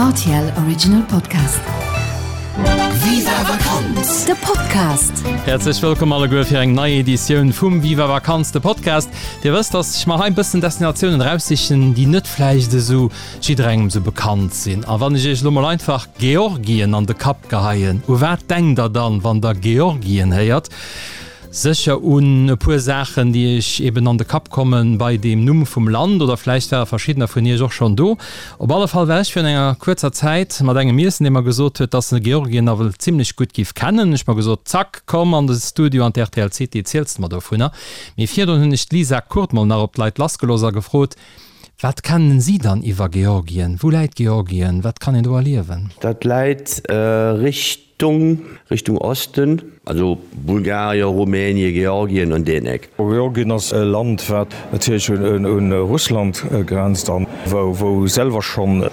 Rtl Original Podcast. Viva Vakanz, de Podcast! Häerzlech wëllkomm alleguer fir eng nei Editioun vum Viva Vakanz, de Podcast. Dir wësst, dass ech mer hei e bëssen Destinatiounen eraussichen, déi net vläicht esou jidderengem esou bekannt sinn. A wann ech iech elo mol einfach Georgien an de Kapp geheien, u wat denkt der dann, wann der Georgien héiert? Sécher un e puer Saachen, déi iech eben an de Kapp kommen bei deem Numm vum Land, oder vläicht ware verschiddener vun iech och schonn do. Op alle Fall war ech virun enger kuerzer Zäit mat engem iessen, dee mer gesot huet, dass en Georgien nawell zimmlech gutt giff kennen. Ech mer gesot, Zack, komm an de Studio an d'RTL City, ziels de mer dovunner. Mee virdrun hunn ech d'Lisa Kurt mol nach op d'Leit lassgelooss a gefrot, Wat kennen si dann iwwer Georgien? Wou läit Georgien? Wat kann een do erliewen? Dat läit Richtung Richtung Osten, also Bulgarien, Rumänien, Georgien an deen Eck. Georgien ass e Land, wat natierlech un Russland grenzt an wou selwer schonn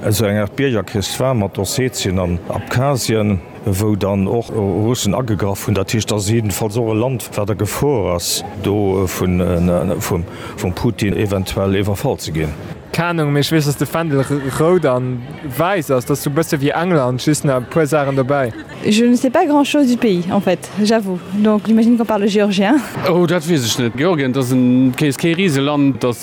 esou eng Aart Biergerkrich war mat Ossetien an Abkhazien. wou dann och Russen agegraff hunn. Dat heescht, dat ass jiddefalls och e Land, wat a Gefor ass, do vum Putin eventuell iwwerfall ze ginn. Keng Ahnung, mee ech weess dass de Fändel rout an wäiss ass. Dat ass sou bësse wéi England, just nach e puer Saachen dobäi. Je ne sais pas grand chose du pays en fait, j'avoue, donc j'imagine qu'on parle géorgien. Oh, dat weess ech net. Georgien, dat ass kee Riseland, dat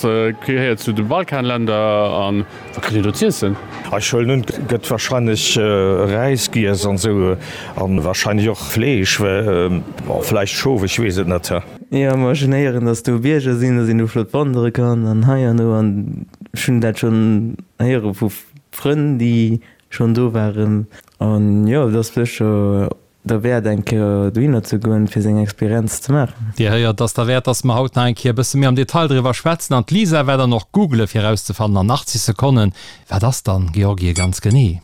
gehéiert zu de Balkanländer an Wat kritt een do z'iessen? Ech huelen un, et gëtt wahrscheinlech Räis giess an esou an wahrscheinlech och Fleesch, bon vläicht Schof, ech weess et net. Jo, ma ech hunn héieren, dass do Bierger sinn, dass een do flott wandere kann an hei an do an ech hunn dat schonn héiere vu Frënn, déi schonn do waren an jo, et ass sécher derwäert eng Kéier dohinner ze goen, fir seng Experienz ze maachen. Dir héiert, ass derwäert, dass mer haut nach eng Kéier e bësse méi am Detail driwwer schwätzen. An d'Lisa war dann och googele fir erauszefannen an 80 Sekonnen, wat ass dann Georgie ganz genee?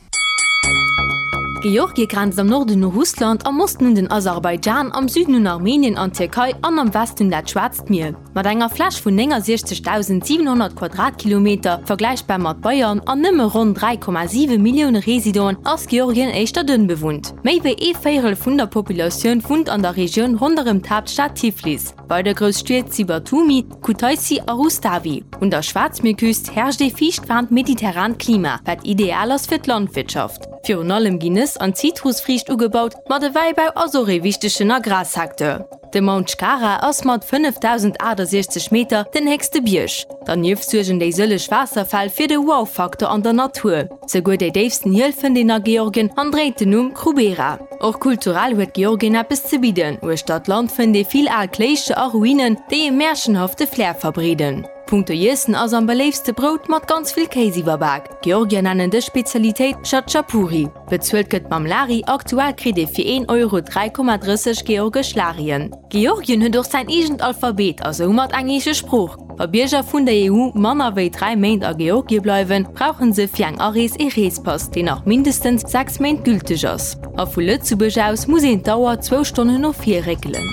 Georgie grenzt am Norden u Russland, am Osten un den Aserbaidschan, am Süden un Armenien an d'Tierkei an am Westen un dat Schwaarzt Mier. Mat enger Fläch vun 69.700 Quadratkilometer, vergläichbar mat Bayern, an nëmme ronn 3,7 Millioune Residenten ass Georgien éischter dënn bewunnt. Méi wéi ee Véierel vun der Populatioun wunnt an der Regioun ronderëm d'Haaptstad Tiflis. Weider grouss Stied si Batumi, Kutaissi a Rustavi. Un der Schwaarzmierküst herrscht ee fiichtwaarmt mediterrant Klima, wat ideal ass fir d'Landwirtschaft. Virun allem ginn Nëss an Zitrusfriicht ugebaut, ma de Wäibau ass och ee wichtegen Agrarsecteur. De Mount Shkhara ass mat 5.068 Meter den héchste Bierg. Dernieft suergen déi sëlleg Waasserfäll fir de Wow-Faktor an der Natur. Souguer déi déifsten Hiel fënnt een a Georgien an dréit den Numm Krubera. Och kulturell huet Georgien eppes ze bidden. Uechter d'Land fënnt ee vill al Kléischter a Ruinen, déi e märchenhafte Flair verbreeden. Punkto Iessen ass am beléiftste Brout mat ganz vill Kéis iwwerbak. D'Georgier nennen dës Spezialitéit Chatschapuri. Bezuelt gëtt mam Lari, aktuell kritt ee fir een Euro 3,30 georgesch Larien. Georgien huet och säin eegent Alphabet a soumat eng eege Sprooch. Wa Bierger vun der EU manner wéi 3 Méint a Georgie bleiwen, brauche se fir eng Arees ee Reespass, deen nach mindestens 6 Méint gülteg ass. A vu Lëtzebuerg aus muss een d'Auer zwou Stonnen no vir réckelen.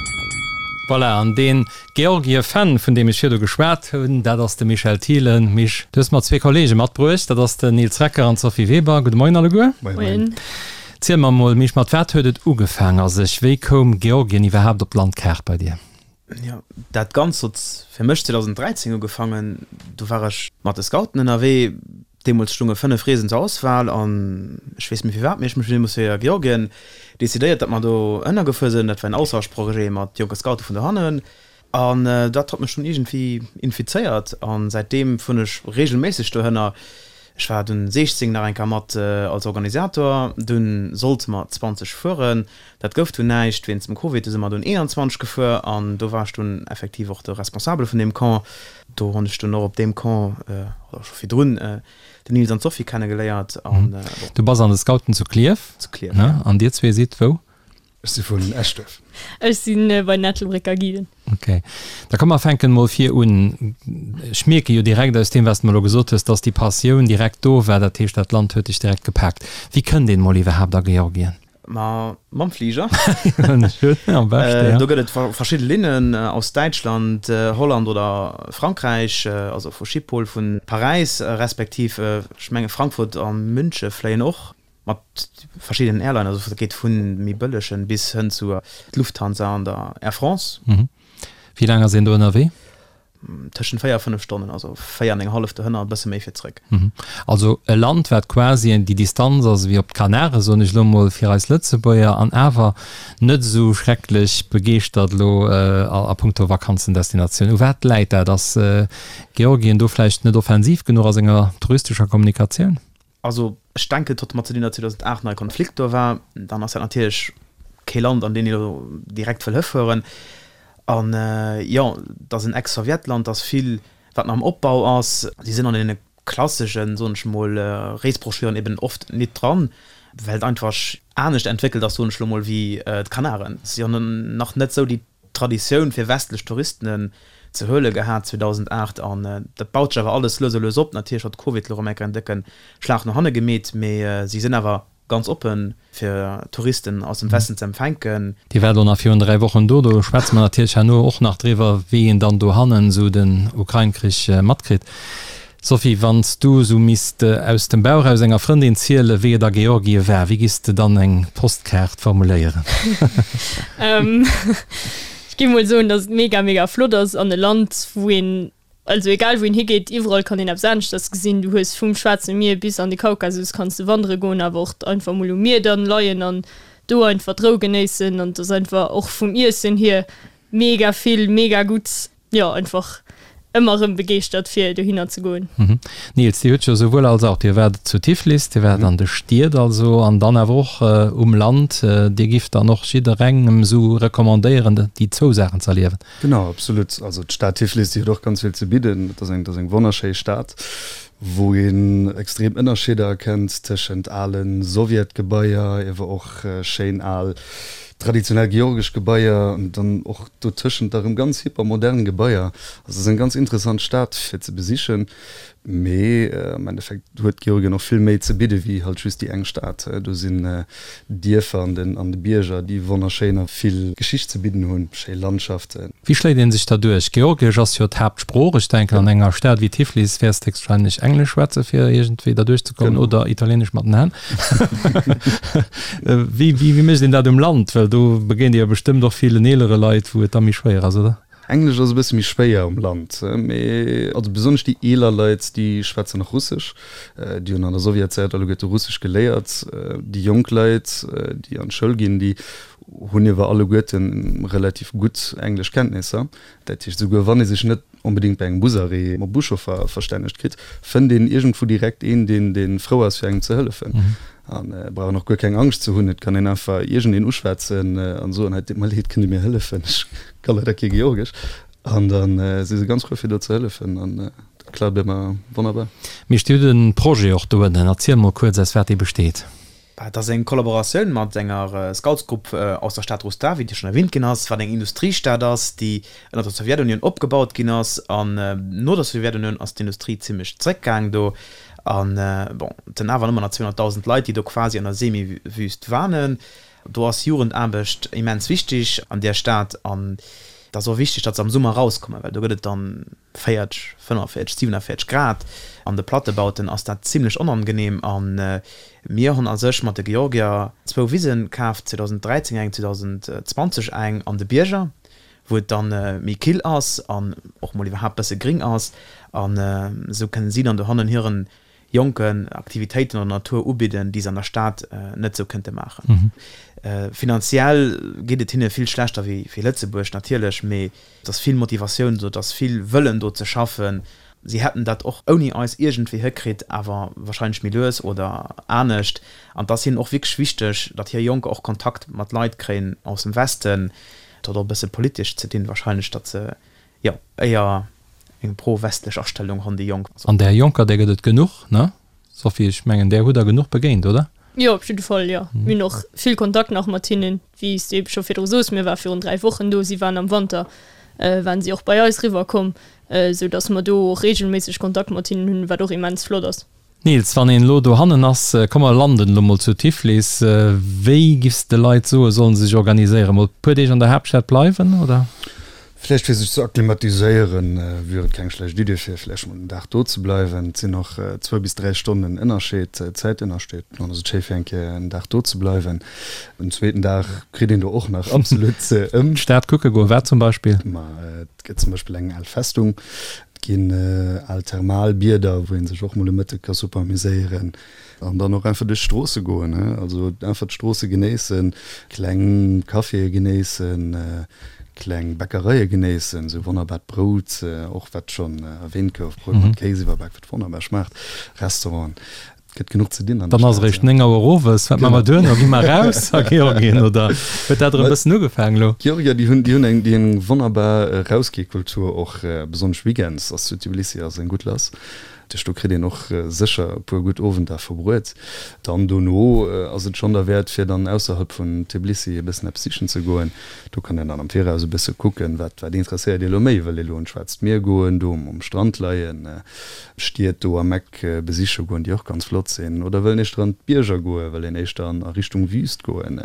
Voilà, an deen Georgie-Fan, vun deem ech virdu geschwat hunn, dat ass de Michel Thielen. Mich, du hues mer zwee Kollege matbruecht, dat ass den Nils Recker an d'Sophie Weber. Gudde Moien alleguer. Moien. Ziel mer mol, Mich, mat wat huet et ugefaang a sech? Wéi koum Georgien iwwerhaapt op d'Landkaart bei dir? Jo, dat Ganzt huet fir mech 2013 ugefaangen. Do war ech mat de Scouten ënnerwee. Deemools stounge 5 Reesen zur Auswahl an ech weess méi firwat, mee ech mech deemools fir Georgien decidéiert, datt mer do ënnergefuer sinn. Dat war en Austauschprojet mat jonke Scoute vun dohannen an dat hat mech dunn iergendwéi infizéiert an säitdeem fueren ech reegelméisseg dohënner. Ech war dunn 16 nach eng Kéier mat als Organisator, dunn sollte mer 20 fueren, dat gouf dunn näischt wéinst dem Covid, du si mer dunn 21 gefuer an do war ech dunn effektiv och de Responsabele vun deem Camp. Do hunn ech dunn och op deem Camp, oder scho virdrun, den Nils an d'Sophie kennegeléiert. An bon. Du bass an de Scouten zu Klierf? Zu Klierf, ja. An dir zwee sidd wou? Ech si vun Eschduerf. Ech si bei den Ettelbrécker Guiden. Ok. Da komm mer fänken mol vir un. Ech mierke jo direkt aus deem, wat s de mer elo gesot hues, dass déi Passioun direkt do war. Dat heescht, dat Land huet dech direkt gepaakt. Wéi kënnt een mol iwwerhaapt a Georgien? Ma mam Fliger. Do gëtt et verschidde Linnen aus Däitschland, Holland oder Frankräich, also vu Schiphol, vu Paräis respektiv ech menge Frankfurt a Münche fléien och mat verschiddenen Airlinen. Also dat geet vu méi bëllegen bis hënn zu Lufthansa an der Air France. Wéi laang ass een do ënnerwee? Tëschent 4 a 5 Stonnen, also 4 an eng hallef dohënner, e bësse méi fir zréck. Also e Land, wat quasi déi Distanz ass ewéi op d'Kanaren, soen ech elo mol, fir eis Lëtzebuerger, an awer net esou schrecklech begeeschtert elo a punkto Vakanzendestinatioun. U wat läit dat? Ass Georgien do vläicht net offensiv genuch a senger touristescher Kommunikatioun? Also ech denken, et hott mat ze dinn, datt 2008 nach e Konflikt do war. Dann ass dat natierlech kee Land, an deen ee lo direkt wëll hëfueren. An jo, et ass en Ex-Sowjetland, et ass vill, wat nach am Opbau ass. Si sinn an deene klasseschen, soen ech mol, Reesbroschüren eben oft nit dran, well et einfach anescht entwéckelt ass, soen ech lo mol, wéi d'Kanaren. Si hunn nach net esou déi Traditioun fir westlech Touristen ze huele gehat 2008 an dat baut sech awer alles lues a lues op. Natierlech huet Covid elo erëm eng Kéier en décke Schlag no hanne gemeet, mee si sinn awer ganz oppe fir Touristen aus dem Westen ze empfänken. Dir waart och nach virun 3 Wochen do, do schwätze mer natierlech herno och nach driwwer, wéi een dann dohannen esou den Ukrain-Krich matkritt. Sophie, wann s du esou misst aus dem Bauch aus enger Frëndin zielen, wéi et a Georgie war, wéi giss de dann eng Postkaart formuléieren? Ech géif mol soen, dass et mega, mega flott ass an e Land, wou een, also egal wou een higeet, iwwerall kann een eppes aneschters gesinn. Du hues vum Schwaarze Mier bis an de Kaukasus kanns de wandere goen, awer och einfach mol um Mier dann leien an do einfach d'Rou genéissen. An et ass einfach och vum Iessen hier mega vill, mega gutt. Jo, einfach ëmmer erëm begeeschtert fir dohinner ze goen. Nils, Dir hutt jo souwuel als auch, Dir waart zu Tiflis, Dir waart an de Stied also an dann awer och um Land. Dir gifft dann och jidderengem esou recommandéieren, déi zwou Saachen ze erliewen? Genau, absolut. Also d'Stad Tiflis, déi huet och ganz vill ze bidden. Et ass eng, et ass eng wonnerschéi Stad, wou een extrem Ënnerscheeder erkennt tëschent ale Sowjetgebaier, iewer och schéin al traditionell georgesch Gebaier an dann och dotëschent da rëm ganz hypermodern Gebaier. Also et ass eng ganz interessant Stad fir ze besichen, mee am Endeffekt huet Georgien och vill méi ze bidde wéi halt just déi eng Stad. Do sinn Dierfer an den an de Bierger, déi wonnerschéin a vill Geschicht ze bidden hunn, schéi Landschaften. Wéi schléit een sech da duerch? Georgiesch ass jo d'Haaptsprooch. Ech denken an enger Stad wéi Tiflis wäers de héchstwahrscheinlech Englesch schwätze fir iergendwéi da duerchzekommen oder Italieenesch mat den Hänn. Wéi, wéi, wéi mécht een dat um Land? Well do begéint Dir jo bestëmmt och villen eelere Leit, wou et da méi schwéier ass, oder? Englesch ass e bësse méi schwéier um Land, mee also besonnesch déi eeler Leit, déi schwätzen nach Russesch. Déi hunn an der Sowjetzäit alleguerte Russesch geléiert. Déi jonk Leit, déi an d'Schoul ginn, déi hunn iewer alleguerte relativ gutt Engleschkenntnisser. Dat heescht, esouguer wann ee sech net onbedéngt bei engem Busarrêt mam Buschauffer verstännegt kritt, fënnt een iergendwou direkt een, deen dee frou ass fir engem ze hëllefen. An et brauch een och guer keng Angscht ze hunn, et kann een einfach iergendeen uschwätzen an soen, hei, et deet mer leed, kënnt Dir mir hëllefen, ech ka leider kee Georgesch. An da si se ganz frou fir do ze hëllefen an dat klappt ëmmer wonnerbar. Mee steet e Projet och doënnen? Erziel mol kuerz aus wat dee besteet. Et ass eng Kollaboratioun mat enger Scoutsgrupp aus der Stad Rustavi, déi schonn erwähnt ginn ass, wat eng Industriestad ass, déi ënner der Sowjetunioun opgebaut ginn ass. An no der Sowjetunioun ass d'Industrie zimmlech zréckgaang do. An bon, et sinn awer ëmmer nach 200.000 Leit, déi do quasi an der Semi-Wüst wanen. Do ass Jugendaarbecht immens wichtig an där Stad. An et ass och wichtig, datt se am Summer erauskommen, well do gëtt et dann 40, 45, 47 Grad. An de Plattebauten ass dat zimlech onangenehm. A mir hunn a sech mat de Georgier zwou Wisen kaaft, 2013 eng, 2020 eng an de Bierger, wou et dann méi kill ass an och mol iwwerhaapt bësse gring ass. An esou kënnen si dann dohannen hiren Jonken Aktivitéiten an der Natur ubidden, déi se an der Stad net esou kënnte maachen. Finanziell geet et hinne vill schlechter wéi Lëtzebuerg natierlech, mee et ass vill Motivatioun do, et ass vill Wëllen do ze schaffen. Si hätten dat och ouni eis iergendwéi hëkritt, awer warscheinlech méi lues oder anescht. An et ass hinnen och wierklech wichteg, datt hir Jonker och Kontakt mat Leit kréien aus dem Westen. Et huet och e bësse politesch ze dinn warscheinlech, datt se Jo, éier eng pro-westlech Astellung honn déi Jonk. An där Jonker, där gëtt et genuch, ne Sophie? Ech mengen, där hutt der genuch begéint, oder? Jo, op jidde Fall, jo. Mir hunn och vill Kontakt nach mat hinnen, wéi s de ebe scho virdru sos. Mir ware virun 3 Wochen do, si waren am Wanter, waren si och bei eis riwwer komm, esou datt mer do och reegelméisseg Kontakt mat hinnen hunn, wat och immens flott ass. Nils, wann een elo dohannen ass, komm mer landen elo mol zu Tiflis, wéi giffs de Leit soen, sollen se sech organiséieren? Mol puer Deeg an der Haaptstad bleiwen, oder? Vläicht fir sech ze akklimatiséieren, wier et keng schlecht Idee fir vläicht mol en Dag do ze bleiwen. Et sinn och zwou bis 3 Stonnen Ënnerscheed, Zäitënnerscheed. Dann ass et schéi fir eng Kéier en Dag do ze bleiwen. En zweeten Dag kritt een do och nach absolut ëm. D'Stad kucke goen, wat zum Beispill? Ma et gëtt zum Beispill eng al Festung, et ginn al Thermalbieder, wou ee sech och mol e Mëtteg ka super amuséieren. An dann och einfach duerch d'Stroosse goen, he, also einfach d'Stroosse genéissen, kleng Caféë genéissen, kleng Bäckereie genéissen, esou wonnerbart Brout, och wat schonn erwähnt gouf, Brout mat Kéis iwwerbak, wat wonnerbar schmaacht, Restauranten, et gëtt genuch ze dinn an der Dann ass Stad. eréischt 9 Auer owes, wat maache mer duerno? Gi mer eraus a Georgien oder huet dat erëm e bëssen ugefaangen elo? D'Georgier, déi hunn, déi hunn eng, déi hunn eng wonnerbar Erausgehkultur och, besonnesch weekends ass zu Tbilissi ass eng gutt lass. Duerch do kritt een och sécher e puer gutt Owender verbruet. Dann dono ass et schonn derwäert fir dann ausserhalb vun Tbilissi e bëssen eppes sichen ze goen. Do kann een dann am Viraus e bësse kucken, wat wat interesséiert ee lo méi. Wëll ee lo un d'Schwaarzt Mier goen, do um Strand leien, Stied do am Eck besiche goen, déi och ganz flott sinn, oder wëll een éischter an d'Bierger goen, wëll een éischter an a Richtung Wüst goen.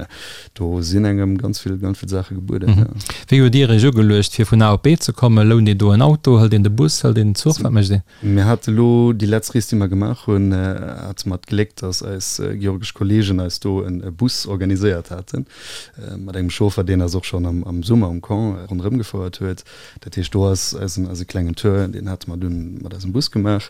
Do sinn engem ganz vill ganz vill Saache gebueden, jo. Wéi hutt Dir Iech ugeluecht fir vun A op B ze kommen? Lount een do en Auto, hëlt een de Bus, hëlt een den Zuch, wat mécht een? Mir hate lo déi letzt Rees, déi mer gemaach hunn, hate mer d'Gléck, dass eis georgesch Kollegen eis do e Bus organiséiert haten, mat engem Chauffer, deen eis och schonn am Summer um Camp ronderëm gefouert huet. Dat heescht, do ass eisen, eise klengen Tour, deen hate mer dunn mat eisem Bus gemaach.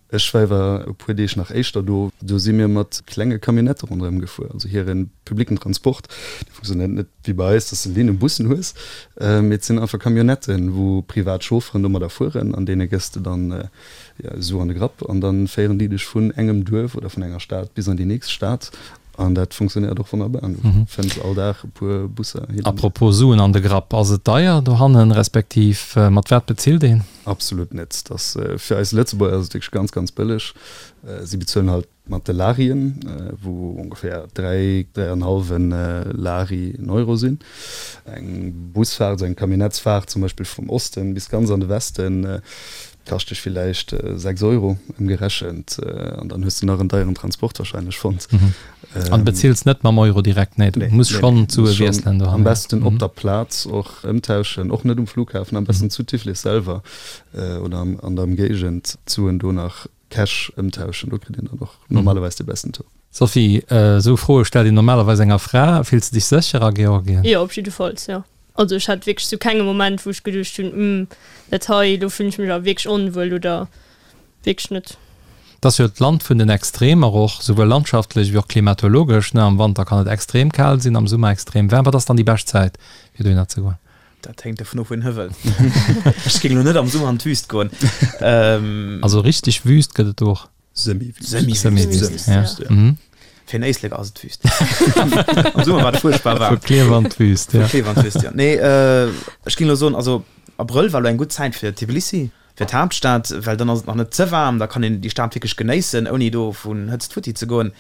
Ech war iwwer e puer Deeg nach éischter do. Do si mir mat klenge Camionnettë ronderëm gefuer. Also hire publicken Transport, dee funktionéiert net wéi bei eis, dass de Linnenbussen hues, mee et sinn einfach Camionnetten, wou privat Chaufferen domadder fueren an deene gëss de dann Su an de Grapp an da féieren déi dech vun engem Duerf oder vun enger Stad bis an déi nächst Stad an dat funktionéiert och wonnerbar an du fënns all Dag e puer Busser hin an hier. Apropos Suen an de Grapp, ass et deier dohannen, respektiv mat wat bezilt een? Absolut net. Dat fir eis Lëtzebuerger ass et wierklech ganz, ganz bëlleg. Si bezuelen halt Mat de Larien, wou ongeféier 3, 3 an hallwen Lari en Euro sinn. Eng Busfaart, esou eng Camionnettsfaart zum Beispill vum Osten bis ganz an de Westen, kascht dech villäicht 6 Euro ëmgerechent. An dann hues de nach en deieren Transport wahrscheinlech fonnt. An bezills net mam Euro direkt? Nee, du muss schonn d'Sue wiesselen dohannen. Am besten op der Plaz och ëmtauschen, och net um Flughafen, am besten zu Tiflis selwer oder an der Ëmgéigend d'Suen do nach Cash ëmtauschen, do kritt een dann och normalerweis de besten Taux. Sophie, esou Froe stellt een normalerweis enger Fra. Fills de dech sécher a Georgien? Jo, op jiddefalls, jo. Also ech hat wierklech zu kengem Moment, wou ech geduecht hunn, Hm, dat hei, do fillen ech mech awer wierklech onwuel oder wierklech net. Et ass jo d'Land vun den Extremer och, souwuel landschaftlech wéi och klimatologesch, ne? Am Wanter kann et extrem kal sinn, am Summer extrem waarm. Wat ass dann déi bescht Zäit, fir dohinner ze goen? Dat hänkt dovun of, wou een hi wëll. Ech géing elo net am Summer an d'Wüst goen. Also richteg Wüst gëtt et do och? Semi-Wüst. Semi-Wüst, ja. Fir en Éislek ass et Wüst. Am Summer war et fuerchtbar waarm. Vu Klierf an d'Wüst, ja. Vu Klierf an d'Wüst, ja. Nee, ech géing elo soen, also Abrëll war elo eng gutt Zäit fir Tbilissi, fir d'Haaptstad, well dann ass et nach net ze waarm, da kann een déi Stad wierklech genéissen, ouni do vun Hëtzt futti ze goen.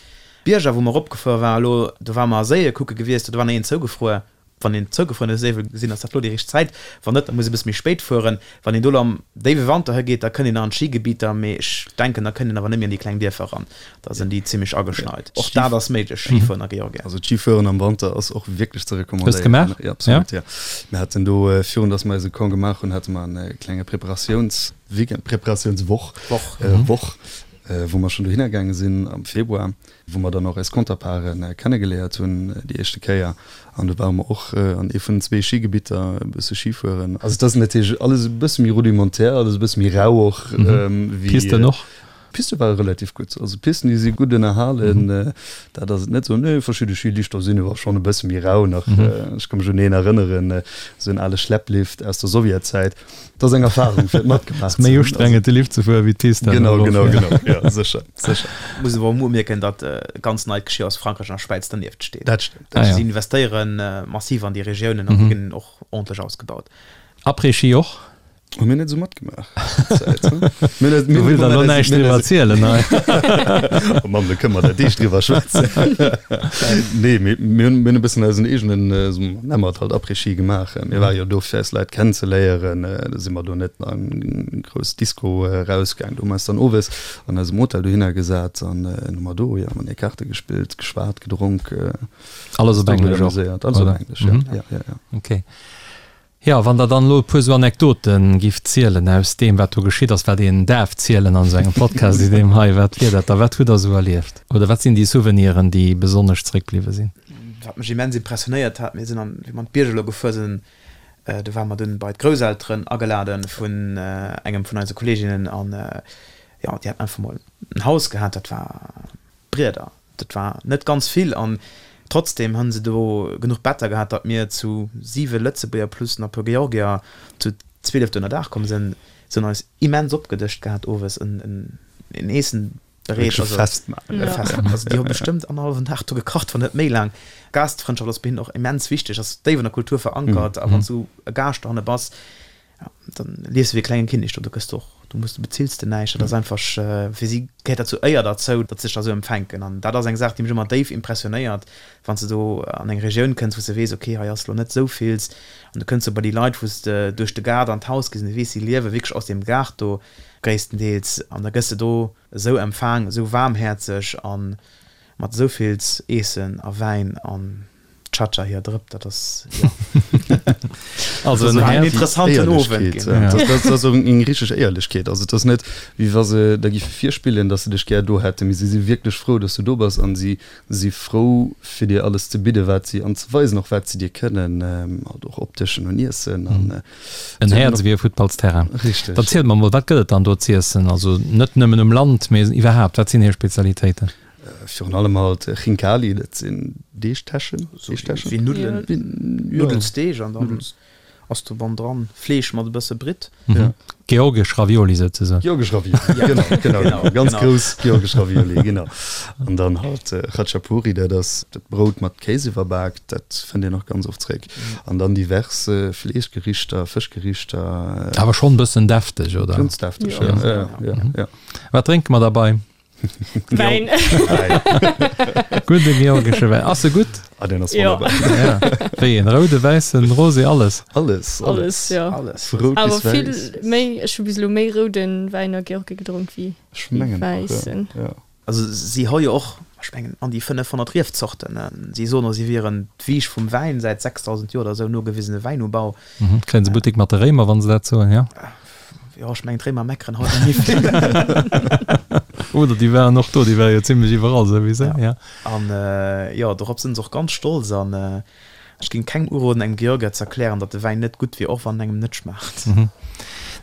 D'Bierger, wou mer eropgefuer waren elo, do ware mer Séie kucke gewiescht, do war nach een zougefruer. Wann een zougefruerene Séi wëll gesinn, ass dat lo déi richteg Zäit. Wann net, da muss ee bësse méi spéit fueren. Wann een do lo am déiwe Wanter higeet, da kënnt een nach an d'Schigebieter, mee ech denken, da kënnt een awer net méi an déi kleng Dierfer eran. Da sinn déi zimmlech ageschneit. Och dat ass méiglech, Schifueren a Georgien. Also d'Schifueren am Wanter ass och wierklech ze Hues de gemaach? recommandéieren. Jo, absolut, jo. Mir haten do, virun dass mer eise Camp gemaach hunn, hate mer e klenge Preparatiounsweekend, Preparatiounswoch, Woch, wou mer schonn dohinner gaange sinn am Februar. wou mer dann och eis Counterparten kennegeléiert hunn déi éischte Kéier an do ware mer och an ee vun den zwee Schigebitter e bësse Schi fueren. Also et ass natierlech alles e bësse méi rudimentär, alles e bësse méi rau och wéi. D'Pisten och? D'Piste ware relativ gutt. Also d'Pisten déi si gutt ënnerhalen, dat ass et net esou. Nee, verschidde Schilichter sinn awer schonn e bësse méi rau nach. Ech ka mech un een erënneren, esou en ale Schlepplift aus der Sowjetzäit. Dat ass eng Erfahrung fir et matgemaach ze hunn. Méi ustrengend de Lift ze fueren wéi d'Pist dann Genau, genau, genau, jo, sécher, sécher. Muss awer och umierken, datt ganz neit Geschir aus Frankräich an der Schwäiz dernieft steet. Dat stëmmt. Ah, ja. Si investéiere massiv an déi Regiounen an déi ginn och ordentlech ausgebaut. Après-Ski och? Hu mir net esou matgemaach. Du wëlls der elo näischt driwwer erzielen, hei. Oh Mann, do kënne mer der Deeg driwwer schwätzen. Nee, mir hunn e bëssen eisen eegenen, nenne mer et halt Après-Ski gemaach. Mir ware jo do fir eis Leit kennenzeléieren. Da si mer do net an grouss Disco erausgaang. Do hu mer eis dann owes an eisem Hotel dohinner gesat an hu mer do, jo, mat Kaarte gespillt, geschwat, gedronk. Alles op Englesch och? Alles op Englesch, jo. Ja, ja, ja. Okay. Jo, wann Der dann elo e puer esou Anekdote gifft zielen aus deem, wat do geschitt ass, wat een däerf zielen an esou engem Podcast wéi deem hei, wat wier dat da? Wat hutt Der esou erlieft? Oder wat sinn déi Souveniren, déi besonnesch zréckbliwwe sinn? Wat mech immens impressionéiert hat, mir sinn an, wéi mer an d'Bierg elo gefuer sinn, do ware mer dunn bei d'Grousselteren agelade vun engem vun eise Kolleeginnen an, jo, déi haten einfach mol en Haus gehat, dat war Brieder. Dat war net ganz vill an trotzdem hunn se do genuch Better gehat, datt mir zu 7 Lëtzebuerger plus nach e puer Georgier zu 12 do ënner Daach komm sinn. Se hunn eis immens opgedëscht gehat owes, en Eessen bereet. Wierklech e Festmahl. E Festmahl. Also déi hu bestëmmt annerhallwen Dag do gekacht, wann net méi laang. Gastfrëndschaft ass bei hinnen och immens wichteg, ass déif an der Kultur verankert a wann s du e Gaascht dohanne bass, Dann liefs de wéi e klenge Kinnek do, do gëss de och, do muss de, bezills de näischt. Dat ass einfach, fir si gehéiert dat zur Éier derzou, datt se sech da sou empfänken. An dat ass eng Saach, déi mech ëmmer déif impressionéiert, wann s de do an eng Regioun kënns, wou s de weess, okay, hei ass elo net sou vills, an du kënns do bei déi Leit, wou s de duerch de Gaart an d'Haus gees an du weess, si liewe wierklech aus deem Gaart do gréisstendeels, an da gëss de do esou empfaang, esou waarmhäerzeg a mat esou vills Eessen a Wäin an. Chacha hier Drëpp, dat ass jo. Also en Häerz. Interessanten Owend ginn. Dat ass och eng richteg Éierlechkeet. Also et ass net, wéi wa se der géife virspillen, datt se dech gär do hätten, mee si si wierklech frou, datt s du do bass an si si frou, fir dir alles ze bidden, wat si an ze weisen och, wat si dir kënnen, halt och opdëschen un Iessen an. En Häerz ewéi e Futtballsterrain. Richteg. Dann zielt mer mol, wat gëtt et dann do z'iessen? Also net nëmmen um Land, mee iwwerhaapt, wat sinn hir Spezialitéiten? Virun allem halt Khinkali, dat sinn Deegtäschen. Deegtäschen? Wéi Nuddelen, Nuddelsdeeg an dann ass do bannendran Fleesch mat e bësse Britt. Ja. Georgesch Ravioli souzesoen. Georgesch Ravioli, genau, genau, genau. Ganz grouss georgesch Ravioli, genau. An dann halt Khachapuri, dat ass dat Brout mat Kéis iwwerbak, dat fënnt een och ganz oft zréck. An dann divers Fleeschgerichter, Fëschgerichter. Awer schonn e bëssen defteg, oder? Ganz defteg, ja, ja, ja, ja. Wat drénke mer derbei? Wäin. Gudde georgesche Wäin. Ass e gutt? Ah, deen ass wonnerbar. Ja. Wéi een? Roude, wäissen, rosé, alles? Alles, alles. Ja. Alles. Vu rout bis wäiss. Awer vill méi, ech hu bis elo méi roude Wäin a Georgie gedronk wéi wäissen. Ja. Also si hu jo och, ech mengen, an déi 500 Riefzorten. Si soen och, si wieren d'Wieg vum Wäin, säit 6.000 Joer oder esou nogewisene Wäinubau. Kréien se Buttek mat de Réimer, wa se dat soen, jo? Jo, ech mengen d'Réimer meckeren haut net méi vill. Oder déi waren och do, déi ware jo zimlech iwwerall souwisou, ja. An jo, dorop sinn se och ganz stolz. An ech géing kengem uroden, engem Georgier ze erklären, datt de Wäin net gutt wier, och wann en engem net schmaacht.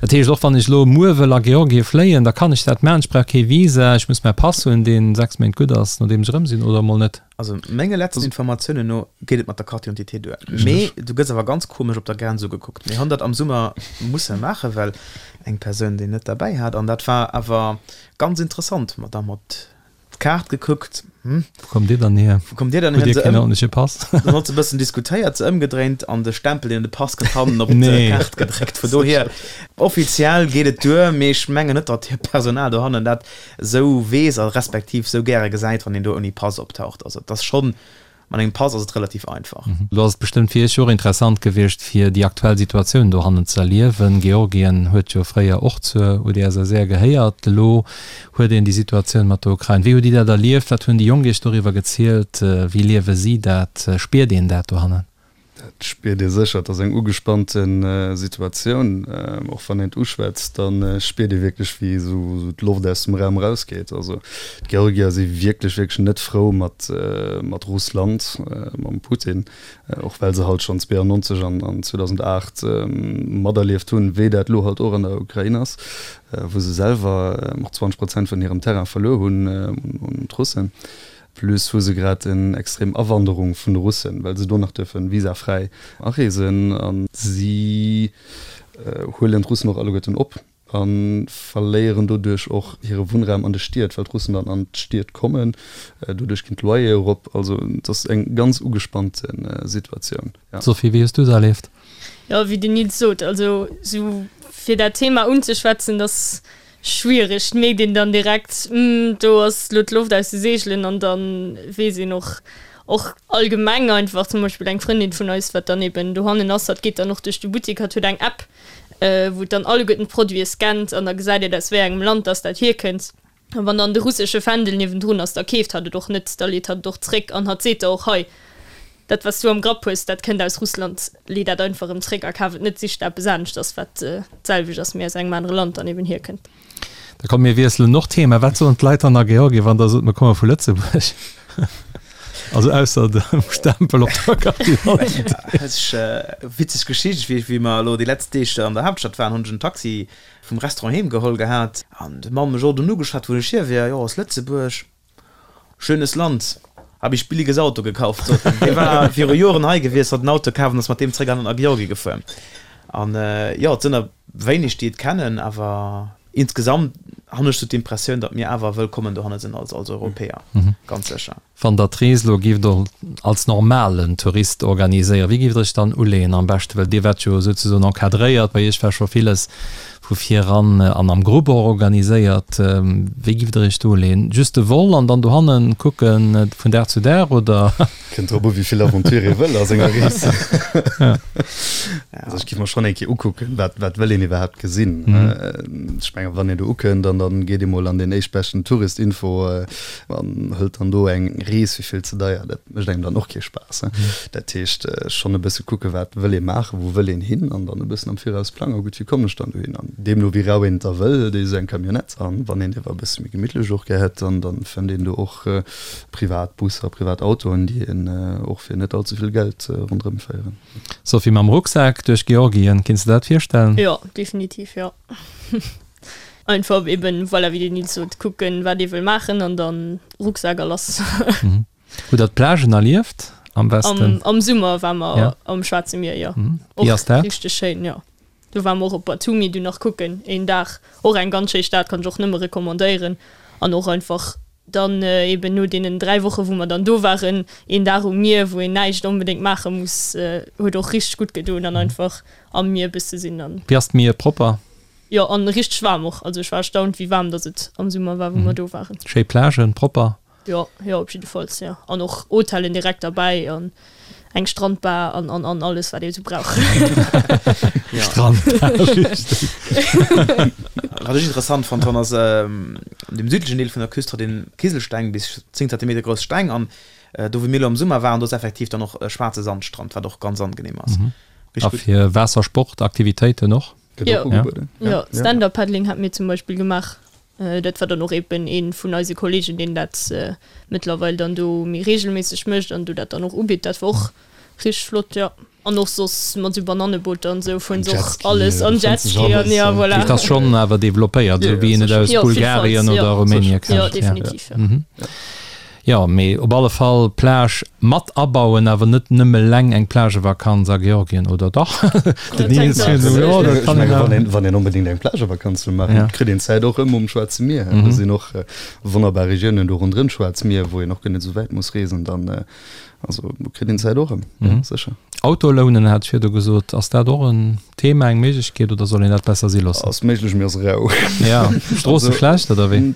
Dat heescht, och wann ech elo muer wëll a Georgie fléien, da kann ech dat maachen, ech brauch kee Visa, ech muss mäi Pass hunn, dee 6 Méint gutt ass, nodeem ech erëm sinn, oder emol net? Also menge letzten Informatiounen no geet et mat der Carte d'identité duer. Mee du gëss awer ganz komesch op der Grenz ugekuckt. Mir hunn dat am Summer musse maachen, well eng Persoun déi net derbäi hat an dat war awer ganz interessant. Mer da mat d'Kaart gekuckt, hm. Wou kommt Dir dann hier? Wou kommt Dir dann hier? Hutt Dir keen ordentleche Pass? Dann huet se e bëssen diskutéiert, se ëmgedréint an de Stempel deen un de Pass kënnt hannen op d'Kaart gedréckt. Vun dohier, offiziell geet et duer, mee ech mengen net, datt hiert Personal dohannen dat esou weess a respektiv esou gäre gesäit, wann een do ouni Pass optaucht. Also et ass schonn, mat engem Pass ass et relativ einfach. Lo ass et bestëmmt fir Iech jo och interessant gewiescht, fir déi aktuell Situatioun dohannen ze erliewen. Georgien huet jo fréier och zur UdSSR gehéiert. Elo huet een déi Situatioun mat der Ukrain. Wéi hutt Dir dat erlieft? Wat hunn déi Jonk Iech doriwwer gezielt? Wéi liewe si dat? Spiert een dat dohannen? Dat spiert ee sécher. Et ass eng ugespannte Situatioun. Och wann een et uschwätzt, da spiert ee wierklech, wéi esou d'Loft aus dem Raum erausgeet. Also d'Georgier si wierklech, wierklech net frou mat mat Russland, mam Putin, och well se halt schonn 92 an 2008 materlieft hunn, wéi dat elo halt och an der Ukrain ass, wou se selwer och 20 Prozent vun hirem Terrain verluer hunn un d'Russen. Plus hu se grad en extrem Awanderung vun de Russen, well se do nach duerfen visafräi areesen. A si huelen d'Russen och alleguerten op a verléieren doduerch och hire Wunnraum an de Stied, well d'Russen dann an d'Stied kommen. Doduerch ginn d'Loyere erop. Also et ass eng ganz ugespannte Situatioun. Sophie, wéi hues du se erlieft? Jo, wéi den Nils sot, also sou fir dat Thema unzeschwätzen, dass Schwiereg, et mierkt een dann direkt, hm, do ass lo d'Loft aus de Seegelen an dann weess een och, och allgemeng einfach, zum Beispill eng Frëndin vun eis, wat dann eben dohannen ass, hatt geet dann och duerch de Buttik, hatt huet eng App, wou et dann alleguerten d'Produite scannt an da gesäit et aus wéi engem Land dass dat hierkënnt. An wann dann de russesche Fändel niewendrun ass, da keeft hatt et och net, da leet hatt et och zréck an hatt seet da och, hei. Dat wat s du am Grapp hues, dat kënnt aus Russland, lee dat einfach erëm zréck a kaf et net, sich der eppes aneschters, wat d'selwecht ass, mee aus engem anere Land dann eben hierkënnt. Da komm mir wiesselen och d'Thema. Wat soen d'Leit dann a Georgien, wann der sot, mir komme vu Lëtzebuerg? Also ausser dem Stempel op der Carte d'identité. Witzeg Geschicht, wéi wéi mer elo déi letzt Deeg an der Haaptstad waren, hunn ech en Taxi vum Restaurant heem geholl gehat an de Mann mech och dunn ugeschwat, wou ech hier wier, jo aus Lëtzebuerg. Schönes Land, hab ich billiges Auto gekauft, sot en. Dee war viru Joren hei gewiescht, hat en Auto kaf an ass mat deem zréck an a Georgie gefuer. An jo, et sinn der wéineg, déi et kennen, awer insgesamt han ech sou d'Impressioun, datt mir awer wëllkommen dohanne sinn als als Europäer, ganz sécher. Wann Der d'Rees elo gift als normalen Tourist organiséieren, wéi gift Der iech dann uleeën am beschten? Well Dir waart jo souzesoen encadréiert, bei Iech war scho villes vu vir eran an am Grupp och organiséiert. Wéi giff der iech do uleeën? Just de Vol an dann dohannen kucken vun Dag zu Dag oder? Kënnt drop u wéi vill Aventure ee wëll a senger Rees. Also ech giff mer schonn eng Kéier ukucken, wat wat wëll een iwwerhaapt gesinn. Ech mengen wann een do ukënnt an dann geet ee mol an deen éischtbeschten Tourist-Info an hëlt dann do eng Rees fir vill ze deier, dat mécht engem dann och kee Spaass. Dat heescht schonn e bësse kucke wat wëll ee maachen, wou wëll een hin an dann e bëssen am Viraus plangen, gutt wéi kommen ech dann dohin an deemno wéi rau een et da wëll, hëlt ee sou eng Camionnette an wann een diewer e bësse méi gemittlech och gär hätt, dann dann fënnt een do och privat Busser, privat Autoen, déi een och fir net all ze vill Geld ronderëm féieren. Sophie, mam Rucksak duerch Georgien, kinns de dat virstellen? Jo, definitiv jo. Einfach eben, voilà, wéi den Nils sot, kucken wat ee wëll maachen an dann Rucksak a lass. Hutt der d'Plagen erlieft am Westen? Am, am Summer war mer ja. am Schwaarze Mier, jo. Mhm. Wéi ass dat? Richteg schéin, jo. Do war mer och op Batumi du nach kucken een Dag. Och eng ganz schéi Stad, kann ech och nëmme recommandéieren. An och einfach dann eben no deenen 3 Woche wou mer dann do waren, een Dag um Mier, wou een näischt onbedéngt maache muss, huet och richteg gutt gedoen an einfach am Mier bësse sinn an. Wéi ass d'Mier propper? Jo, an richteg waarm och. Also ech war erstaunt wéi waarm dass et am Summer war wou mer do waren. Schéi Plagen, propper? Jo, jo, op jiddefalls, jo. An och Hotellen direkt derbäi an eng Strandbar an, an, an alles, wat ee sou brauch. Strandbar, richteg. Wat ech interessant fonnt hunn, ass, an dem südlechen Deel vun der Küst hat een Kiselsteng, bis 10 Zentimeter grouss Steng. An do, wou mir elo am Summer waren, do ass effektiv dann och e schwaarze Sandstrand, wat och ganz angenehm ass. A fir Waassersportaktivitéiten och? Gëtt och ugebueden. Jo, Stand-up-Paddling hate mir zum Beispill gemaach. Dat war dann och eben ee vun eise Kollegen, deen dat mëttlerweil dann do méi reegelméisseg mécht an do dat dann och ubitt. Dat war och richteg flott, jo. An och soss mat esou Banannebooter an esou fueren se och alles an Jetski an jo, voilà. Dat ass schonn awer developpéiert, esou wéi een et aus Bulgarien oder Rumänien kennt. Jo, definitiv, jo. Jo, mee op alle Fall Plage mat abauen, awer net nëmme leng eng Plagevakanz a Georgien, oder dach? Den Nils huet esou, jo, dat kann een awer. Wann een onbedéngt eng Plagevakanz wëll maachen, kritt een d'Zäit och ëm um Schwaarze Mier. Do sinn och wonnerbar Regiounen do ronderëm d'Schwaarz Mier, wou een och guer net esou wäit muss reesen. Dann, also do kritt een d'Zäit och ëm, jo, sécher. Auto lounen hat ech virdu gesot. Ass dat och en Thema, eng Méiglechkeet, oder soll een dat besser si loossen? Ass méiglech, mee ass rau. Ja, Stroosse schlecht, oder wéi?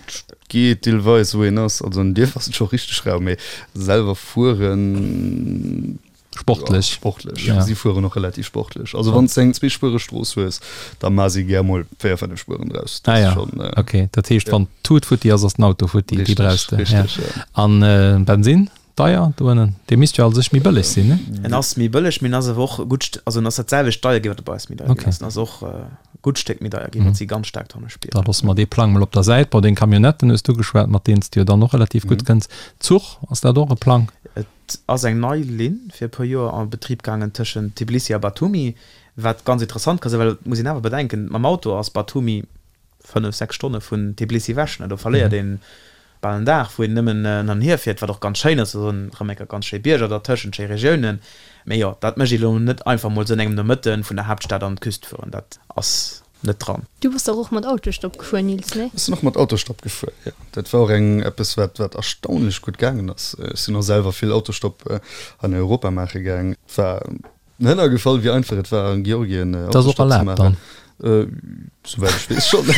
Geet deelweis wou een ass. Also an Dierf ass et scho richteg rau, mee selwer fueren Sportlech. Ja, sportlech. Ja. Si fueren och relativ sportlech. Also wann s de eng zweespuereg Strooss hues, da ma si gär mol 4, 5 Spueren draus. Dat ah, ja. Schon, äh, okay, dat heescht, ja. wann d'Tut futti ass, ass den Auto futti, déi brauchs de. Richtig, ja. Ja. An äh, Bensin? Deier do ënnen? Dee misst jo a sech méi bëlleg sinn, ne? En ass méi bëlleg, mee en ass awer och e gutt St-, also en ass dat selwecht deier ginn, wat e bei eis méi deier ginn ass. En ass och e gutt Stéck méi deier ginn, wat si ganz staark dranne spieren. Da loosse mer dee Plang mol op der Säit. Bon, deng Camionnetten hues du geschwat, mat deenen s de jo dann och relativ gutt kënns. Zuch, ass dat och e Plang? Et ass eng nei Linn fir e puer Joer a Betrib gaangen tëschent Tbilisi a Batumi, wat ganz interessant ka sinn, well et muss een awer bedenken, mam Auto ass Batumi 5, 6 Stonne vun Tbilisi ewech, ne? Do verléiert een bal en Dag, wou een nëmmen hin an hier fiert, wat och ganz schéin ass, do sinn erëm eng Kéier ganz schéi Bierger dertëschent, schéi Regiounen. Mee jo, dat mécht ee lo net einfach mol sou an engem Nomëtte vun der Haaptstad an d'Küst fueren, dat ass net dran. Du bass dach och mat Autostopp gefuer, Nils, nee? Ech sinn och mat Autostopp gefuer, jo. Dat war och eng eppes, wat wat erstaunlech gutt gaangen ass. Ech sinn och selwer vill Autostopp hei an Europa maache gaang. Et war Hënner gefall, wéi einfach et war an Georgien Dat ass och Autostopp ze erlaabt maachen. dann? Souwäit ech weess schonn.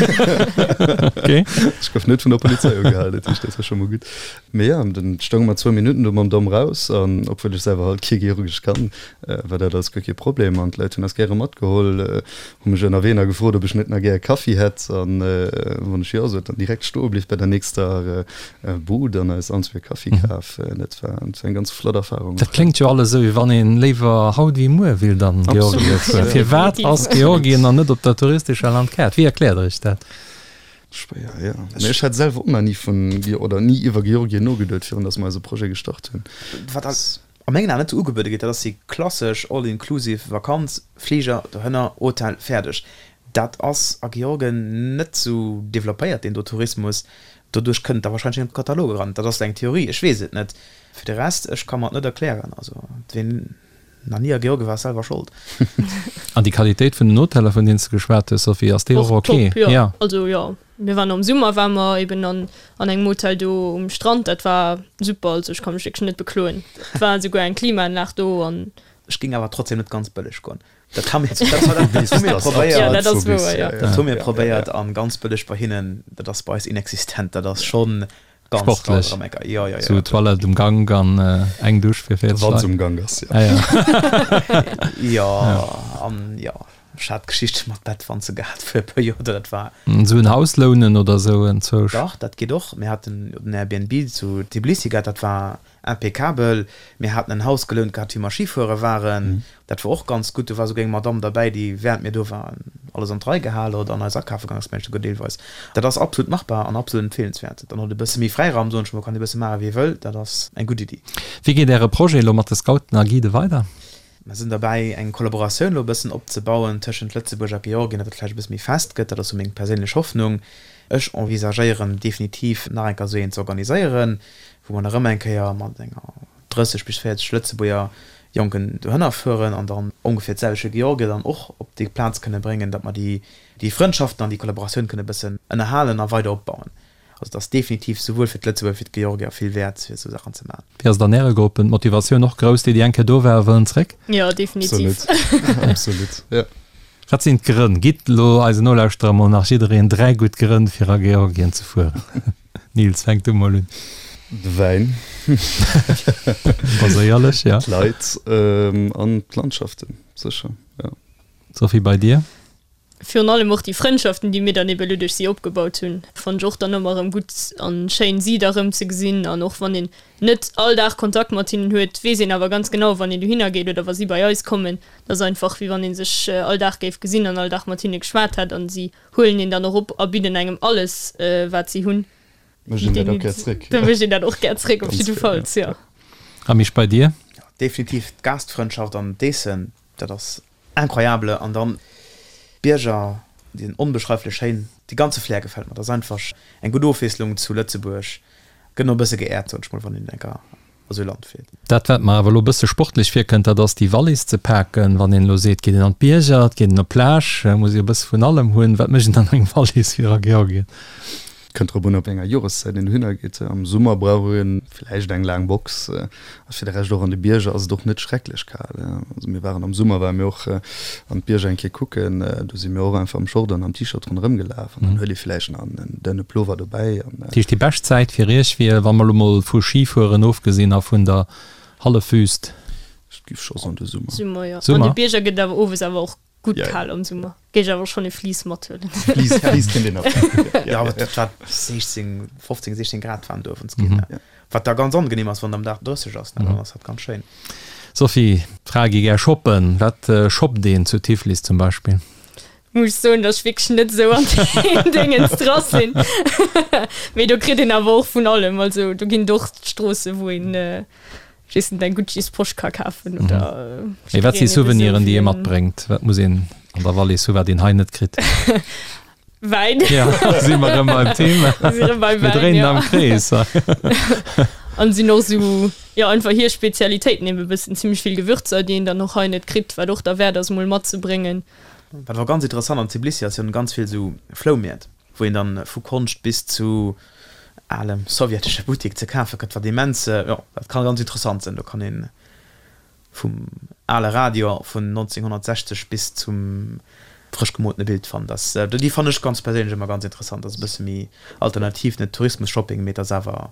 Ech gouf net vun der Polizei ugehalen, dat heescht, dat war scho mol gutt. Mee jo, dann stounge mer zwou Minutten do mam Domm raus an obwuel ech selwer halt kee Georgesch kann, war dat alles guer kee Problem an d'Leit hunn eis gäre matgeholl, hu mech ënnerwee nach gefrot, ob ech net nach gär e Kaffi hätt an wann ech jo sot, dann direkt stoe bliww bei der nächster Bud an eis allen zwee e Kaffi kaf. Dat war eng ganz flott Erfarung. Dat kléngt jo alles esou, wéi wann een léiwer haut wéi muer willt an Georgien fueren. Firwat ass Georgien dann net op der touristescher Landkaart? Wéi erkläert der iech dat? Schwéier, jo. Mee ech hat selwer och nach ni vun, oder ni iwwer Georgien nogeduet, virun datt mer eise Projet gestart hunn. Wat a mengen Aen net esou ugebuede gëtt, dat ass déi klassesch all-inclusive Vakanz, Fliger dohënner, Hotel, fäerdeg. Dat ass a Georgien net esou developpéiert, deen do Tourismus. Doduerch kënnt et da warscheinlech net an de Katalog eran. Dat ass eng Theorie, ech weess et net. Fir de Rest, ech ka mer et net erklären. Also ween nach ni a Georgien war, ass selwer Schold. An déi Qualitéit vun den Hoteller, vun deenen s de geschwat hues, Sophie, ass déi och ok? Top, jo. Also jo, mir waren am Summer ware mer eben an an engem Hotel do um Strand, dat war super, also ech ka mech wierklech net bekloen. Et war esouguer eng Klimaanlag do an. Ech géing awer trotzdem net ganz bëlleg goen. Dat hu mir, dat hu mir probéiert. Ja, dat ass wouer, jo. Dat hu mir probéiert an ganz bëlleg bei hinnen, dat ass bei eis inexistent. Dat ass schonn ganz Sportlech. Ganz am Ecker. Jo, jo, jo. Sou Toilette um Gank an eng Dusch fir 40 Wann se um Gank ass, jo. Ah, ja. Jo, an jo, ech hat Geschichte mat Bettwanze gehat fir e puer Joer, dat war. Sou en Haus lounen oder sou enzwousch? Dach, dat geet och. Mir haten den Airbnb zu Tbilisi gehat, dat war Impeccabel. Mir haten en Haus gelount gehat, wéi mer Schifuere waren. Dat wor och ganz gutt. Do war souguer eng Madamm derbäi, déi während mir do waren alles an d'Rei gehal huet an eis akafe gaang ass, mengen ech souguer deelweis. Dat ass absolut machbar an absolut empfeelenswäert. Dann huet e bësse méi Fräiraum, soen ech mol, kann ee bësse maache wéi e wëll. Dat ass eng gutt Iddi. Wéi geet Äre Projet elo mat de Scouten a Guidë weider? Mer sinn derbäi, eng Kollaboratioun elo e bëssen opzebauen tëschent Lëtzebuerg a Georgien, datt dat vläicht e bësse méi fest gëtt. Dat ass sou meng perséinlech Hoffnung. Ech envisagéieren definitiv, nach eng Kéier esou eent ze organiséieren, wou mer nach ëmmer eng Kéier mat enger 30 bis 40 Lëtzebuerger Jonken dohënner fueren an dann ongeféier d'selwecht Georgier dann och op déi Plaz kënne bréngen, datt mer déi, déi Frëndschaften an déi Kollaboratioun kënne bëssen ënnerhalen a weider opbauen. Also et ass definitiv souwuel fir d'Lëtzebuerger wéi fir d'Georgier vill wäert, fir esou Saachen ze maachen. Wéi ass et an Äre Gruppen? D'Motivatioun och grouss, déi, déi eng Kéier do waren, wëllen zréck? Jo, definitiv. Absolut, absolut, jo. Wat sinn d'Grënn? Gitt elo eisen Nolauschterer mol nach jiddereen 3 gutt Grënn, fir a Georgien ze fueren. Nils, fänk du mol un. De Wäin. Baséierlech, ja. D'Leit an d'Landschaften, sécher, jo. Sophie, bei dir? Virun allem och déi Frëndschaften, déi mir dann ebe lo duerch si opgebaut hunn, fannen ech och dann ëmmer erëm gutt an schéin, si da rëm ze gesinn. An och wann een net all Dag Kontakt mat hinnen huet, weess een awer ganz genau, wann een dohinner geet oder wa si bei eis kommen, dat ass einfach wéi wann ee sech all Dag géif gesinn an all Dag mat hinne geschwat hätt. An si huelen een dann och op a bidden engem alles, wat si hunn. Mécht een dat och gär zréck. Da mécht een dat och gär zréck, op jiddefalls, jo. A Misch, bei dir? Definitiv d'Gastfrëndschaft an d'Eessen, dat ass incroyable. An dann d'Bierger, déi sinn onbeschreiflech schéin. Dee ganze Flair gefält mer. Dat ass einfach eng gutt Ofwiesslung zu Lëtzebuerg. Gëtt och e bësse geäert, soen ech mol, wann een enker a sou Land fiert. Dat wat mer awer elo e bësse sportlech virkënnt, dat ass déi Wallis ze paken. Wann een elo seet, geet een an d'Bierger, et geet een op d'Plage, muss ee e bësse vun allem hunn. Wat mécht een an eng Wallis fir a Georgien? Kënnt drop un op wéi enger Joreszäit een dohinner geet. Am Summer brauch ee vläicht eng laang Box a fir de Rescht och an de Bierger ass et och net schrecklech kal. Also mir waren am Summer ware mir och an d'Bierger eng Kéier kucken, do si mir och einfach am Short an am T-Shirt ronderëm gelaf an dann huet ee vläicht nach en dënne Plover dobäi an. Dat heescht déi bescht Zäit fir iech wier, wa mer elo mol vu Schifueren ofgesinn a vun der Hallefwüst? Ech giff scho soen de Summer. Summer, jo. An de Bierger gëtt et awer owes awer och Gutt kal am Summer. Géif ech awer schonn e Fleece mathuelen. Fleece, Fleece kënnt een nach. Jo, awer et war 16, 15, 16 Grad waren do owends ginn. Wat da ganz angenehm ass, wann et am Dag 30 ass, ne, dann ass dat ganz schéin. Sophie, d'Frae gi gär shoppen. Wat shoppt een zu Tiflis zum Beispill? Muss ech soen, dass ech wierklech net esou an deem Déngens dra sinn. Mee do kritt een awer och vun allem. Also do ginn et och Stroosse wou een Weess net, eng Gucci's Posch ka kafen oder. Mee wat si Souveniren, déi ee matbréngt? Wat muss een an der Wallis hu wat een hei net kritt? Wäin. Ja, si mer erëm beim Thema. Si erëm beim Mir Wäin, dréinen ja. am Krees. An sinn och sou, jo, einfach hir Spezialitéiten eben e bëssen, zimmlech vill Gewürzer, déi een dann och hei net kritt, wat och derwäert ass mol matzebréngen. Wat awer ganz interessant an Tbilisi ass, si hunn ganz vill sou Floumäert. wou een dann vu Konscht bis zu alem sowjetesche Buttik ze kafe kritt, wat immens, jo, dat ka ganz interessant sinn. Do kann een vum ale Radio vun 1960 bis zum. Frësch gemoltene Bild fannt. Ass déi fannen ech ganz perséinlech ëmmer ganz interessant. Ass e bësse méi alternativ, net Tourismus-Shopping, mee et ass awer.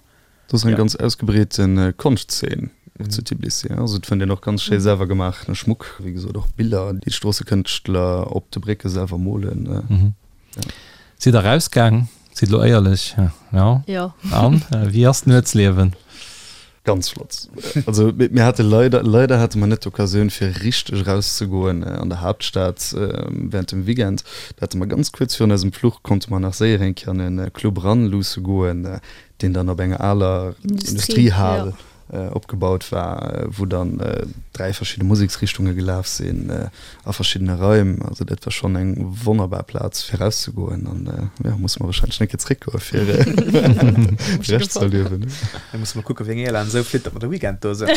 Do ass eng ganz ausgebreete Konschtzeen och zu Tbilissi. Also et fënnt een och ganz schéi selwer gemaachene Schmuck, wéi gesot och Biller, déi d'Stroossekënschtler op de Brécke selwer molen. Sidd der erausgaang? Sidd elo éierlech, jo? Jo. An wéi ass d'Nuetsliewen? Ganz flott. Also mir hate leider, leider hate mer net d'Occasioun fir richteg erauszegoen an der Haaptstad während dem Weekend. Da hate mer ganz kuerz virun eisem Fluch konnte mer nach séier eng Kéier an e Club eran luusse goen, deen dann op enger aler Industriehal opgebaut war, wou dann 3 verschidde Museksrichtunge gelaf sinn a verschiddene Raim. Also dat war schonn eng wonnerbar Plaz fir erauszegoen an jo, musse mer wahrscheinlech eng Kéier zeréckgoe fir de Rescht ze erliewen. Da musse mer kucke wéi eng Airline esou flitt, datt mer de Weekend do sinn.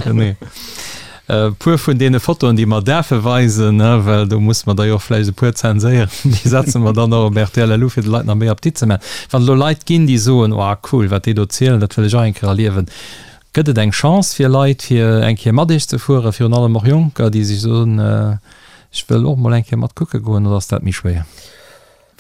Genee. E puer vun deene Fotoen, déi mer däerfe weisen, well do musse mer der jo och vläicht e puer zenséieren, déi setze mer dann och op rtl LU, fir de Leit nach méi Appetit ze maachen. Wann et elo Leit ginn, déi soen, Oh cool, wat déi do zielen, dat wëll ech och eng Kéier erliewen, gëtt et eng Chance fir Leit, fir eng Kéier mat iech ze fueren, virun allem och Jonker, déi sech soen, ech wëll och mol eng Kéier mat kucke goen, oder ass dat méi schwéier?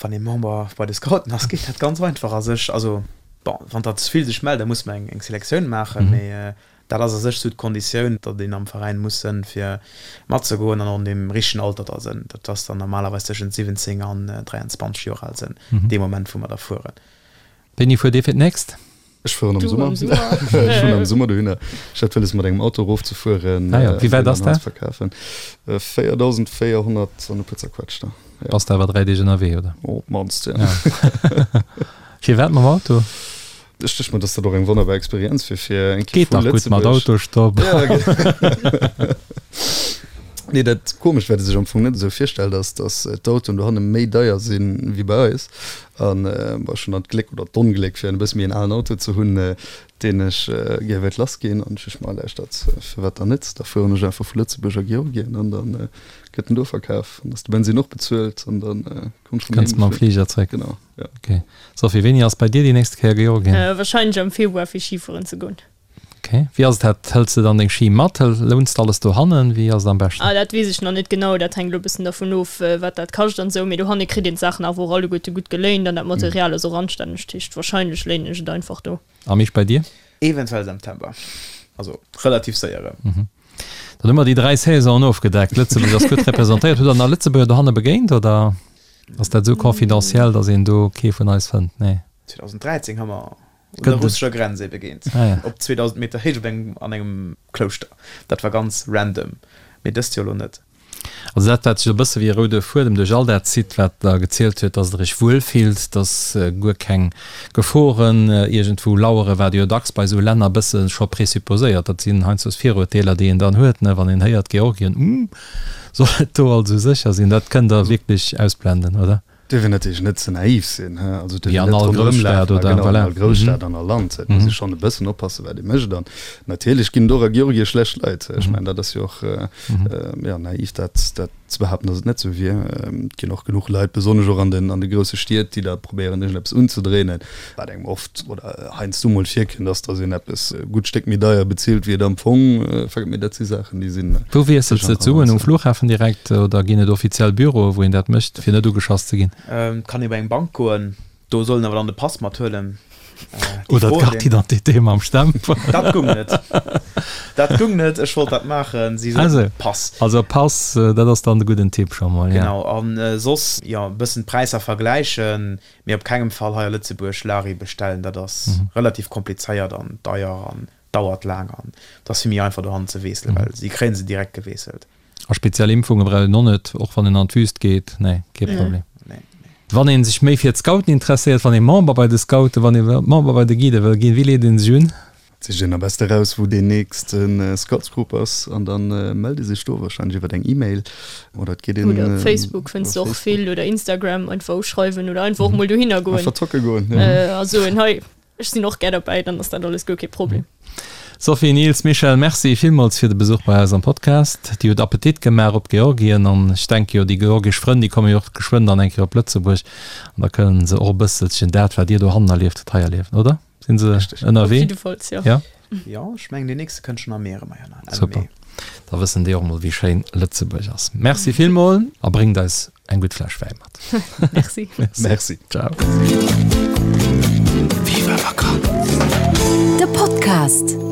Wann ee Member bei de Scouten ass, geet dat ganz einfach a sech. Also, bon, wann der ze vill sech mellen, da musse mer eng Selektioun maachen, mee Dat ass a sech sou d'Konditioun, datt een am Veräin muss sënn fir matzegoen an och an deem richtegen Alter da sënn. Dat ass dann normalerweis tëschent 17 an 23 Joer al sënn, dee Moment wou mer da fueren. Wéini fuert Dir fir d'nächst? Ech fueren am Summer. Ech fueren am Summer dohinner. Ech hat wëlles mat engem Auto erofzefueren. Ah jo, wéi wäit ass dat? 4.400 an e puer zerquetschter. Bass de awer 3 Deeg ënnerwee, oder? Op d'mannst, jo. Firwat mam Auto? Ech duecht mer, dass dat och eng wonnerbar Experienz wier fir eng Kéier Geet vu dach gutt mat Lëtzebuerg. Autostopp. Ja, ge- Nee, dat Komescht, wat ee sech am Fong net esou virstellt, ass, dass d'Autoen dohanne méi deier sinn wéi bei eis. An bon, ech hunn dann d'Gléck oder d'Ongléck, fir en e bësse méi en alen Auto ze hunn, deen ech gär wéilt lassginn. An ech duecht mer, lauschtert, firwat dann net? Da fueren ech einfach vu Lëtzebuerg a Georgien an da gëtt en do verkaf. An ass de Bensinn och bezuelt an da komm ech rëm Kënns de mam heem. Fliger zréck. Genau. Ja. Ok. Sophie, wéini ass bei dir déi nächste Kéier Georgien? Wahrscheinlech am Februar fir Skifueren ze goen. Ok. Wéi ass et dat? Hëls de dann deng Ski mat? Louns de alles dohannen? Wéi ass et am beschten? Ah, dat weess ech nach net genau. Dat hänkt elo e bëssen dervun of, wat dat kascht an esou. Mee dohanne kritt een d'Saachen awer och alleguerte gutt geléint an dat Material ass och anstänneg. Dat heescht, wahrscheinlech léinen ech et einfach do. A Misch, bei dir? Eventuell September. Also relativ séier erëm. Dann hu mer déi 3 Saisonen ofgedeckt. Lëtzebuerg ass gutt representéiert. Hutt der nach Lëtzebuerger dohanne begéint oder ass dat esou confidentiel, datt een do kee vun eis fënnt? Nee. 2013 hu mer un der russescher Grenz ee begéint, op 2000 Meter Héicht op engem, an engem Klouschter. Dat war ganz random, mee dëst Joer elo net. Also dat, wat sech e bësse wéi e roude Fuedem duerch all dat zitt, wat Der gezielt huet, dass Der Iech wuel fillt, dass guer keng Geforen iergendwou laueren, wat jo dacks bei esou Länner e bësse scho présupposéiert. Dat sinn heiansdo Viruerteeler, déi een dann huet, ne, wann een héiert Georgien, Uuh, soll et do also sécher sinn? Dat kënnt Der wierklech ausblenden, oder? Dierf een natierlech net ze naiv sinn, he, also dierf een net ronderëm lafen, genau, an all Grousstad an all Land, et muss ee schonn e bëssen oppassen, wat ee mécht. An natierlech ginn et och a Georgie schlecht Leit, ech mengen, dat ass jo och, jo, naiv dat, dat ze behaapten, datt et net esou wier. Et ginn och genuch Leit, besonnesch och an den, an de grousse Stied, déi da probéieren, iergendeppes unzedréinen, wat engem oft oder heiansdo mol virkënnt, ass, datt een eppes e gutt Stéck méi deier bezilt, wéi et am Fong vergëtt. Mee dat si Saachen, déi sinn. Wou wiesselt se d'Suen? Um Flughafen direkt oder ginn et offiziell Büroe wou een dat mécht, fir net ugeschass ze ginn? Et kann ee bei eng Bank goen, do soll een awer dann de Pass mathuelen. Oder d'Carte d'identité mam Stempel. Dat gung net. Dat gung net. Ech wollt dat maachen, si soten Pass. Also Pass, dat ass dann de gudden Tipp scho mol, jo. Genau. A soss, jo, e bëssen d'Präisser vergläichen. Mee op kengem Fall hei a Lëtzebuerg Lari bestellen, dat ass relativ komplizéiert an deier an dauert laang an et ass vill méi einfach dohannen ze weesselen, well si kréien se direkt geweesselt. A speziell Impfunge brauch een och net, och wann een an d'Wüst geet? Nee, kee Problem. Wann ee sech méi fir d'Scouten interesséiert, wann ee Member bei de Scouten, wann ee Member bei de Guidë wëll ginn, wéi leet ee sech un? Sicht een am beste raus wou deen nächste Scoutsgrupp ass an dann mellt ee sech do wahrscheinlech iwwert eng Email oder et geet een Oder op Facebook fënns de och vill oder Instagram einfach uschreiwen oder einfach och mol dohinner goen. Einfach zocke goen, jo. A soen, hei ech sinn och gär derbäi, dann ass dat alles guer kee Problem. Sophie, Nils, Michèle, Merci villmools fir de Besuch bei eis am Podcast. Dir hutt Appetit gemaach op Georgien an ech denke jo déi georgesch Frënn déi komme jo och geschwënn dann eng Kéier op Lëtzebuerg an da kënnen se och e bësselchen dat wat dir dohannen erlieft hutt hei erliewen, oder? Sinn se ënnerwee? Op jiddefalls, jo. Ja. Jo, ech mengen deen nächste kënnt schonn am Mee erëm heihinner, Enn Super. Mee. Da wëssen déi och mol wéi schéin Lëtzebuerg ass. Merci villmol a bréngt eis eng gutt Fläsch Wäi mat. Merci. Merci. Ciao. Viva Vakanz! De Podcast.